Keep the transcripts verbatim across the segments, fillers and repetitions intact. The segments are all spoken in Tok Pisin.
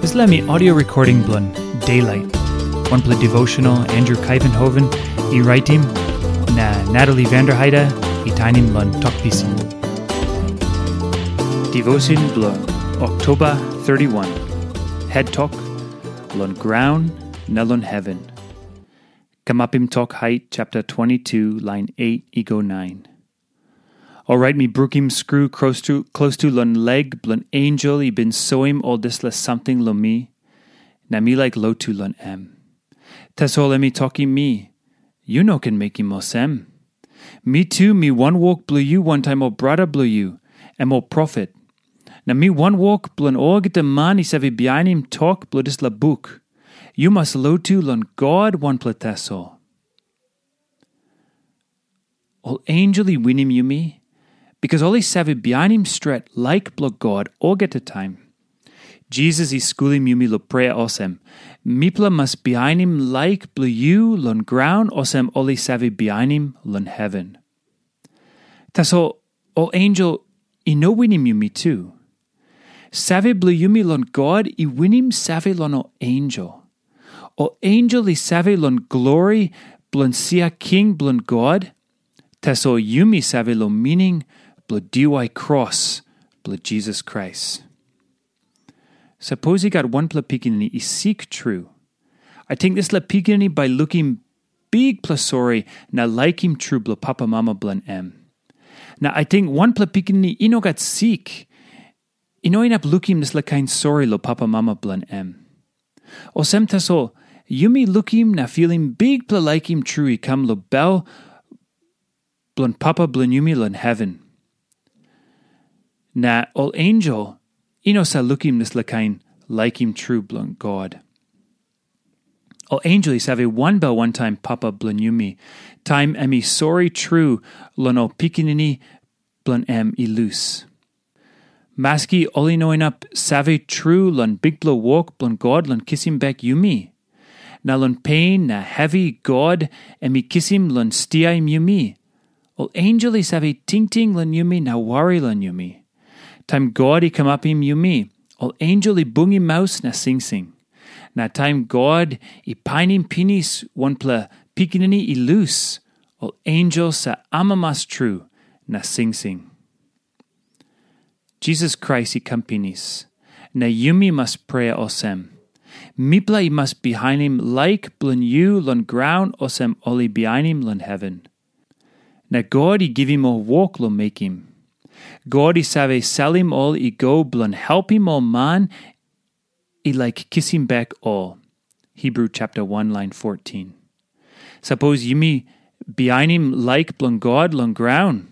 Dispela mi audio recording bilong Daylight, wanpela devotional Andrew Kaivenhoven i raitim, na Natalie Vanderheide i tainim long tok pisin. Devotion bilong Oktoba thirty-one. Head tok, long graun na long heaven. Kamapim Tok Hait chapter twenty-two, lain eight i go nine. Orait mi brukim skru klostu, klostu long leg bilong ensel i bin soim ol dispela samting long mi, na mi laik lotu long em. Tasol em i tokim mi, "Yu no ken mekim olsem. Mi tu mi wanwok bilong yu wantaim ol brata bilong yu, em ol profet. Na mi wanwok bilong olgeta man i save bihainim tok bilong dispela buk. Yu mas lotu long God wanpela tasol." Ol ensel i winim yumi, bikas ol i save bihainim stret laik bilong God olgeta taim. Jisas i skulim yumi long prea olsem, "Mipela mas bihainim laik bilong yu long graun olsem ol i save bihainim long heven." Tasol ol ensel i no winim yumi tu. Save bilong yumi long God i winim save long ol ensel. Ol ensel i save long glori bilong sia king bilong God, tasol yumi save long mining bilong diwai kros bilong Jisas Krais. Sapos i gat wanpela pikinini i sik tru, ating dispela pikinini bai lukim bikpela sori na laikim tru bilong papamama bilong em. Na ating wanpela pikinini i no gat sik, i no inap lukim dispela kain sori long papamama bilong em. Olsem tasol, yumi lukim na filim bikpela laikim tru i kam long bel bilong Papa bilong yumi long heven. Na ol ensel i no sa lukim dispela kain laikim tru bilong God. Ol ensel i save wanbel wantaim Papa bilong yumi, taim em i sori tru long ol pikinini bilong em i lus. Maski ol i no inap save tru long bikpela wok bilong God long kisim bek yumi, na long pen na hevi God em i kisim long stiaim yumi, ol ensel i save tingting long yumi na wari long yumi. Taim God i kamapim yumi, ol ensel i bungim maus na singsing. Na taim God i painim pinis wanpela pikinini i lus, ol ensel sa amamas tru na singsing. Jisas Krais i kam pinis, na yumi mas prea olsem, "Mipela i mas bihainim laik bilong yu long graun olsem ol i bihainim long heven." Na God i givim ol wok long mekim. God i save salim ol i go bilong helpim ol man i laik kisim bek ol. Hebru chapter one, lain fourteen. Sapos yumi bihainim laik bilong God long graun,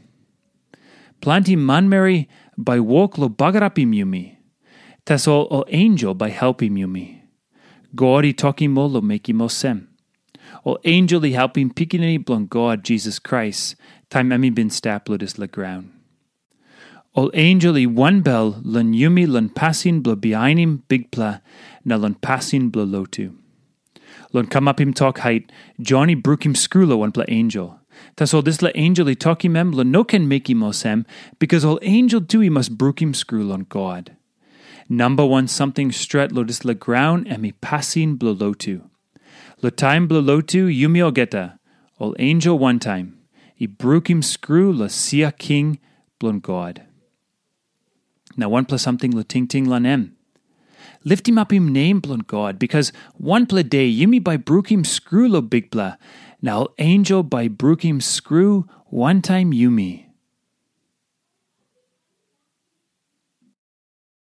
planti manmeri bai wok long bagarapim yumi. Tasol ol ensel bai helpim yumi. God i tokim ol long mekim olsem. Ol ensel i helpim Pikinini bilong God, Jisas Krais, taim em i bin stap long dispela graun. Ol ensel i wanbel long yumi long pasin bilong bihainim Bikpela na long pasin bilong lotu. Long kamapim tok hait, Jon i brukim skru long wanpela ensel. Tasol dispela ensel i tokim em long no ken mekim olsem, bikas ol ensel tu i mas brukim skru long God. Namba wan samting stret long dispela graun em i pasin bilong lotu. Long taim bilong lotu yumi olgeta, ol ensel wantaim, i brukim skru long sia king bilong God. Na wanpela samting long tingting long em. Liftimapim nem bilong God, bikas wanpela de yumi bai brukim skru long Bikpela, na ol ensel bai brukim skru wantaim yumi.